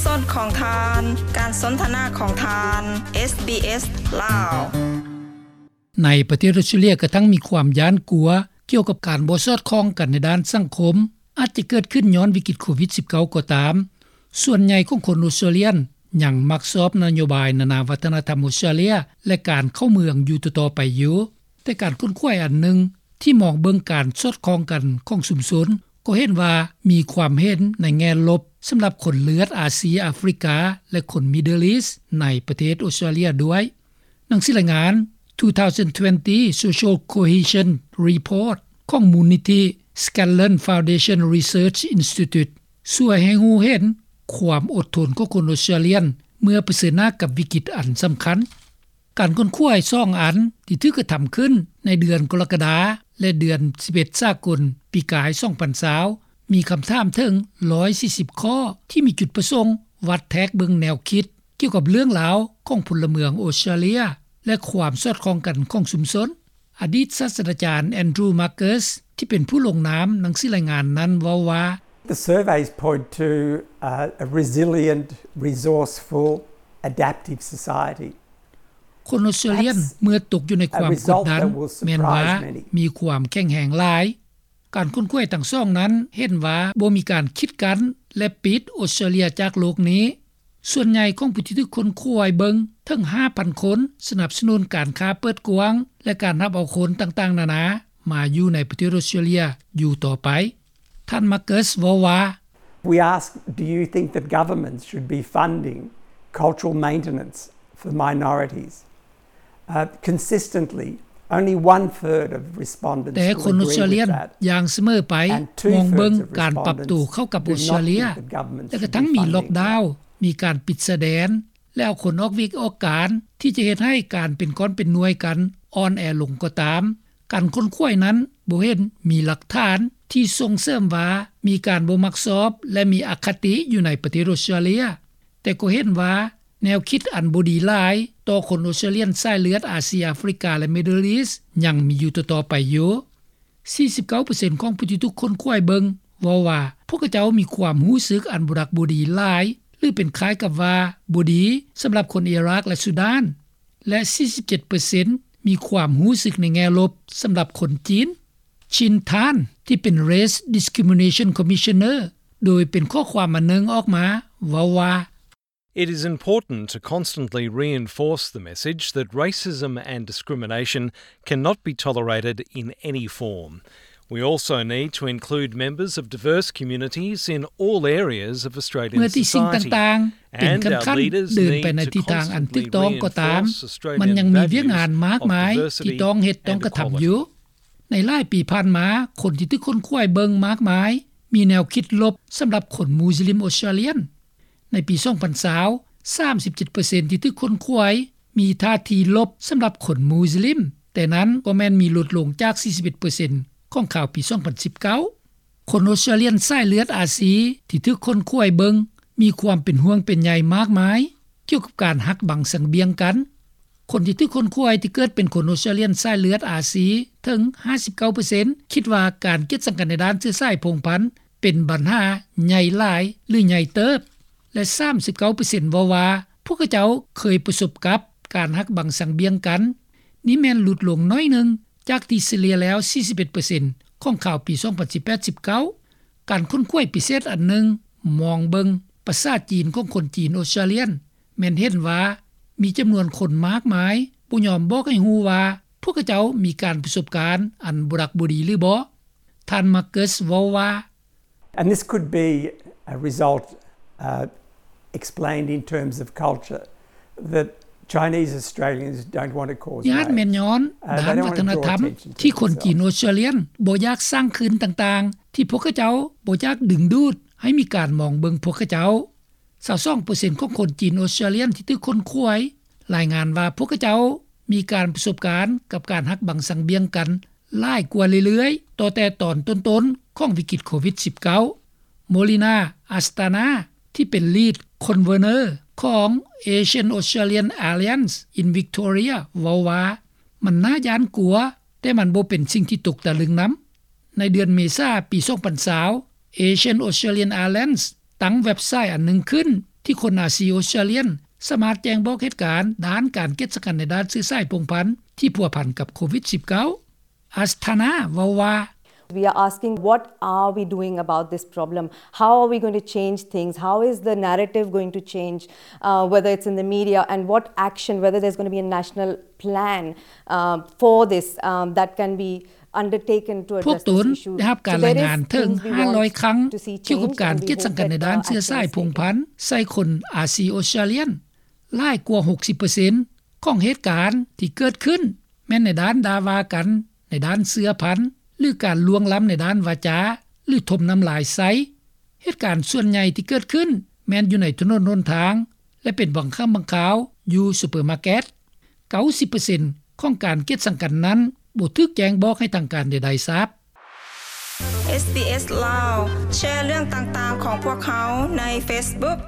ສອດຄ່ອງທ່ານ ການສົນທະນາຂອງທ່ານ ເອສບີເອສ ລາວ. ໃນປະເທດອົດສະຕຣາເລຍ ກະທັງມີຄວາມຢ້ານກົວກ່ຽວກັບການບໍ່ສອດຄ່ອງກັນໃນດ້ານສັງຄົມ ອາດຈະເກີດຂຶ້ນຍ້ອນວິກິດໂຄວິດສິບເກົ້າກໍຕາມ, ສ່ວນໃຫຍ່ຂອງຄົນອົດສະຕຣາເລຍຍັງມັກຊອບນະໂຍບາຍນານາວັດທະນະທຳອົດສະຕຣາເລຍ ແລະ ການເຂົ້າເມືອງຢູ່ຕໍ່ໆໄປຢູ່. ແຕ່ການຄົ້ນຄວ້າອັນໜຶ່ງທີ່ມອງເບິ່ງການສອດຄ່ອງກັນຂອງຊຸມຊົນ ກໍເຫັນວ່າມີຄວາມເຫັນໃນແງ່ລົບສຳລັບຄົນເລືອດອາຊີອາຟຣິກາ ແລະ ຄົນ Middle East ໃນປະເທດອົດສະຕຣາເລຍດ້ວຍ. ໜັງສືລາຍງານ two thousand twenty Social Cohesion Report ຂອງມູນນິທິ Scanlon Foundation Research Institute ຊ່ວຍໃຫ້ຮູ້ເຫັນຄວາມອົດທົນຂອງຄົນອົດສະຕຣາເລຍ ເມື່ອປະເຊີນໜ້າກັບວິກິດອັນສຳຄັນ. ການຄົ້ນຄວ້າສອງອັນທີ່ຖືກກະທຳຂຶ້ນໃນເດືອນກໍລະກະດາ ແລະ ເດືອນສິບເອັດສາກົນ ປີກາຍສອງພັນຊາວ ມີຄຳຖາມເຖິງຮ້ອຍສີ່ສິບຂໍ້ ທີ່ມີຈຸດປະສົງວັດແທກເບິ່ງແນວຄິດ ກ່ຽວກັບເລື່ອງລາວຂອງພົນລະເມືອງອົດສະຕຣາເລຍ ແລະ ຄວາມສອດຄ່ອງກັນຂອງຊຸມຊົນ. ອະດີດສາດສະດາຈານ Andrew Markus ທີ່ເປັນຜູ້ລົງນາມໜັງສືລາຍງານນັ້ນເວົ້າວ່າ The surveys point to, uh, a resilient, resourceful, adaptive society. ຄົນອົດສະຕຣາເລຍເມື່ອຕົກຢູ່ໃນຄວາມກົດດັນ ແມ່ນວ່າມີຄວາມແຂງແຮງຫຼາຍ. ການຄົ້ນຄວ້າທັງສອງນັ້ນເຫັນວ່າບໍ່ມີການຂິດກັ້ນ ແລະ ປິດອົດສະຕຣາເລຍຈາກໂລກນີ້. ສ່ວນໃຫຍ່ຂອງຜູ້ທີ່ຖືກຄົ້ນຄວ້າເບິ່ງເຖິງຫ້າພັນຄົນ ສະໜັບສະໜູນການຄ້າເປີດກວ້າງ ແລະ ການຮັບເອົາຄົນຕ່າງໆນານາມາຢູ່ໃນປະເທດອົດສະຕຣາເລຍຢູ່ຕໍ່ໄປ. ທ່ານ Markus ເວົ້າວ່າ We ask, do you think that governments should be funding cultural maintenance for minorities? Uh, consistently, only one third of respondents ແຕ່ຄົນອົດສະຕຣາເລຍຢ່າງສະເໝີໄປມອງເບິ່ງການປັບໂຕເຂົ້າກັບອົດສະຕຣາເລຍ ແລະ ກະທັງມີລັອກດາວ, ມີການປິດຊາຍແດນ ແລະ ເອົາຄົນອອກວຽກອອກການ ທີ່ຈະເຮັດໃຫ້ການເປັນກ້ອນເປັນໜ່ວຍກັນອ່ອນແອລົງກໍຕາມ. ການຄົ້ນຄວ້ານັ້ນບໍ່ເຫັນມີຫຼັກຖານທີ່ສົ່ງເສີມວ່າມີການບໍ່ມັກຊອບ ແລະ ມີອະຄະຕິຢູ່ໃນປະເທດອົດສະຕຣາເລຍ, ແຕ່ກໍເຫັນວ່າແນວຄິດອັນບໍ່ດີຫຼາຍຕໍ່ຄົນອົດສະຕຣາເລຍສາຍເລືອດອາຊີອາຟຣິກາ ແລະ Middle East ຍັງມີຢູ່ຕໍ່ໆໄປຢູ່. ສີ່ສິບເກົ້າເປີເຊັນຂອງຜູ້ທີ່ຖືກຄົ້ນຄວ້າເບິ່ງເວົ້າວ່າ ພວກເຂົາເຈົ້າມີຄວາມຮູ້ສຶກອັນບໍ່ດັກບໍ່ດີຫຼາຍ ຫຼື ເປັນຄ້າຍກັບວ່າບໍ່ດີສຳລັບຄົນອີຣາກ ແລະ ຊູດານ ແລະ ສີ່ສິບເຈັດເປີເຊັນມີຄວາມຮູ້ສຶກໃນແງ່ລົບສຳລັບຄົນຈີນ. ຊິນທານ ທີ່ເປັນ Race Discrimination Commissioner ໂດຍເປັນຂໍ້ຄວາມອັນໜຶ່ງອອກມາເວົ້າວ່າ It is important to constantly reinforce the message that racism and discrimination cannot be tolerated in any form. We also need to include members of diverse communities in all areas of Australian society. ເມື່ອທີ່ສິ່ງຕ່າງໆເປັນຂັ້ນໆເດີນໄປໃນທິດທາງອັນຖືກຕ້ອງກໍຕາມ, ມັນຍັງມີວຽກງານມາກມາຍທີ່ຕ້ອງເຮັດຕ້ອງກະທຳຢູ່. ໃນຫຼາຍປີຜ່ານມາ, ຄົນທີ່ຖືກຄົ້ນຄວ້າເບິ່ງມາກມາຍ ມີແນວຄິດລົບສຳລັບຄົນມຸສລິມອົດສະຕຣາເລຍ. ໃນປີສອງພັນຊາວ ສາມສິບເຈັດເປີເຊັນທີ່ຖືກຄົ້ນຄວ້າ ມີທ່າທີລົບສຳລັບຄົນມຸສລິມ, ແຕ່ນັ້ນກໍແມ່ນມີຫຼຸດລົງຈາກສີ່ສິບເອັດເປີເຊັນຂອງຄາວປີສອງພັນສິບເກົ້າ. ຄົນອົດສະຕຣາເລຍສາຍເລືອດອາຊີທີ່ຖືກຄົ້ນຄວ້າເບິ່ງ ມີຄວາມເປັນຫ່ວງເປັນໃຍມາກມາຍກ່ຽວກັບການຫັກບັງສັງບຽງກັນ. ຄົນທີ່ຖືກຄົ້ນຄວ້າທີ່ເກີດເປັນຄົນອົດສະຕຣາເລຍສາຍເລືອດອາຊີເຖິງຫ້າສິບເກົ້າເປີເຊັນ ຄິດວ່າການກຽດຊັງກັນໃນດ້ານເຊື້ອສາຍພົງພັນ ເປັນບັນຫາໃຫຍ່ຫຼາຍ ຫຼື ໃຫຍ່ເຕີບ ແລະ ສາມສິບເກົ້າເປີເຊັນເວົ້າວ່າ ພວກເຂົາເຈົ້າເຄີຍປະສົບກັບການຫັກບັງສັງບຽງກັນ. ນີ້ແມ່ນຫຼຸດລົງໜ້ອຍໜຶ່ງຈາກທີ່ສະເລ່ຍແລ້ວສີ່ສິບເອັດເປີເຊັນຂອງຄາວປີສອງພັນສິບແປດ ສິບເກົ້າ. ການຄົ້ນຄວ້າພິເສດອັນໜຶ່ງມອງເບິ່ງປະສາຈີນຂອງຄົນຈີນອົດສະຕຣາເລຍ ແມ່ນເຫັນວ່າມີຈຳນວນຄົນມາກມາຍບໍ່ຍອມບອກໃຫ້ຮູ້ວ່າ ພວກເຂົາເຈົ້າມີການປະສົບການອັນບໍ່ດັກບໍ່ດີຫຼືບໍ່. ທ່ານ Markus ເວົ້າວ່າ And this could be a result, uh, explained in terms of culture, that Chinese Australians don't want to cause waves. ນີ້ອາດແມ່ນຍ້ອນດ້ານວັດທະນະທຳທີ່ຄົນຈີນອົດສະຕຣາເລຍບໍ່ຢາກສ້າງຄື້ນຕ່າງໆ ທີ່ພວກເຂົາເຈົ້າບໍ່ຢາກດຶງດູດໃຫ້ມີການມອງເບິ່ງພວກເຂົາເຈົ້າ. ຊາວສອງເປີເຊັນຂອງຄົນຈີນອົດສະຕຣາເລຍທີ່ຖືກຄົ້ນຄວ້າ ລາຍງານວ່າພວກເຂົາເຈົ້າມີການປະສົບການກັບການຫັກບັງສັງບຽງກັນຫຼາຍກວ່າເລື້ອຍໆ ຕໍ່ແຕ່ຕອນຕົ້ນໆຂອງວິກິດໂຄວິດສິບເກົ້າ. Molina Astana ທີ່ເປັນ Lead Convener ຂອງ Asian Australian Alliance in Victoria ເວົ້າວ່າ ມັນໜ້າຢ້ານກົວ, ແຕ່ມັນບໍ່ເປັນສິ່ງທີ່ຕົກຕະລຶງນຳ. ໃນເດືອນເມສາປີສອງພັນຊາວ Asian Australian Alliance ຕັ້ງເວັບໄຊອັນໜຶ່ງຂຶ້ນ ທີ່ຄົນອາຊີອົດສະຕຣາເລຍສາມາດແຈ້ງບອກເຫດການດ້ານການກຽດສັງກັນໃນດ້ານເຊື້ອສາຍພົງພັນທີ່ພົວພັນກັບໂຄວິດສິບເກົ້າ. ອັສທານາເວົ້າວ່າ We are asking what are we doing about this problem? How are we going to change things? How is the narrative going to change, uh, whether it's in the media, and what action, whether there's going to be a national plan, uh, for this, um, that can be undertaken to address this issue. ພວກຕົນໄດ້ຮັບການລາຍງານເຖິງຫ້າຮ້ອຍຄັ້ງກ່ຽວກັບການກຽດສັງກັນໃນດ້ານເຊື້ອສາຍພົງພັນໃສ່ຄົນອາຊີອົດສະຕຣາເລຍ ຫຼາຍກວ່າຫົກສິບເປີເຊັນຂອງເຫດການທີ່ເກີດຂຶ້ນແມ່ນໃນດ້ານດ່າວ່າກັນໃນດ້ານເຊື້ອພັນ ຫຼື ການລ່ວງລ້ຳໃນດ້ານວາຈາ ຫຼື ຖົມນ້ຳລາຍໃສ່. ເຫດການສ່ວນໃຫຍ່ທີ່ເກີດຂຶ້ນແມ່ນຢູ່ໃນຖະໜົນຫົນທາງ ແລະ ເປັນບາງຄັ້ງບາງຄາວຢູ່ຊຸບເປີມາເກັດ. ເກົ້າສິບເປີເຊັນຂອງການກຽດສັງກັນນັ້ນບໍ່ຖືກແຈ້ງບອກໃຫ້ທາງການໃດໆຊາບ. ເອສບີເອສ ລາວ ແຊເລື່ອງຕ່າງໆຂອງພວກເຮົາໃນເຟສບຸກ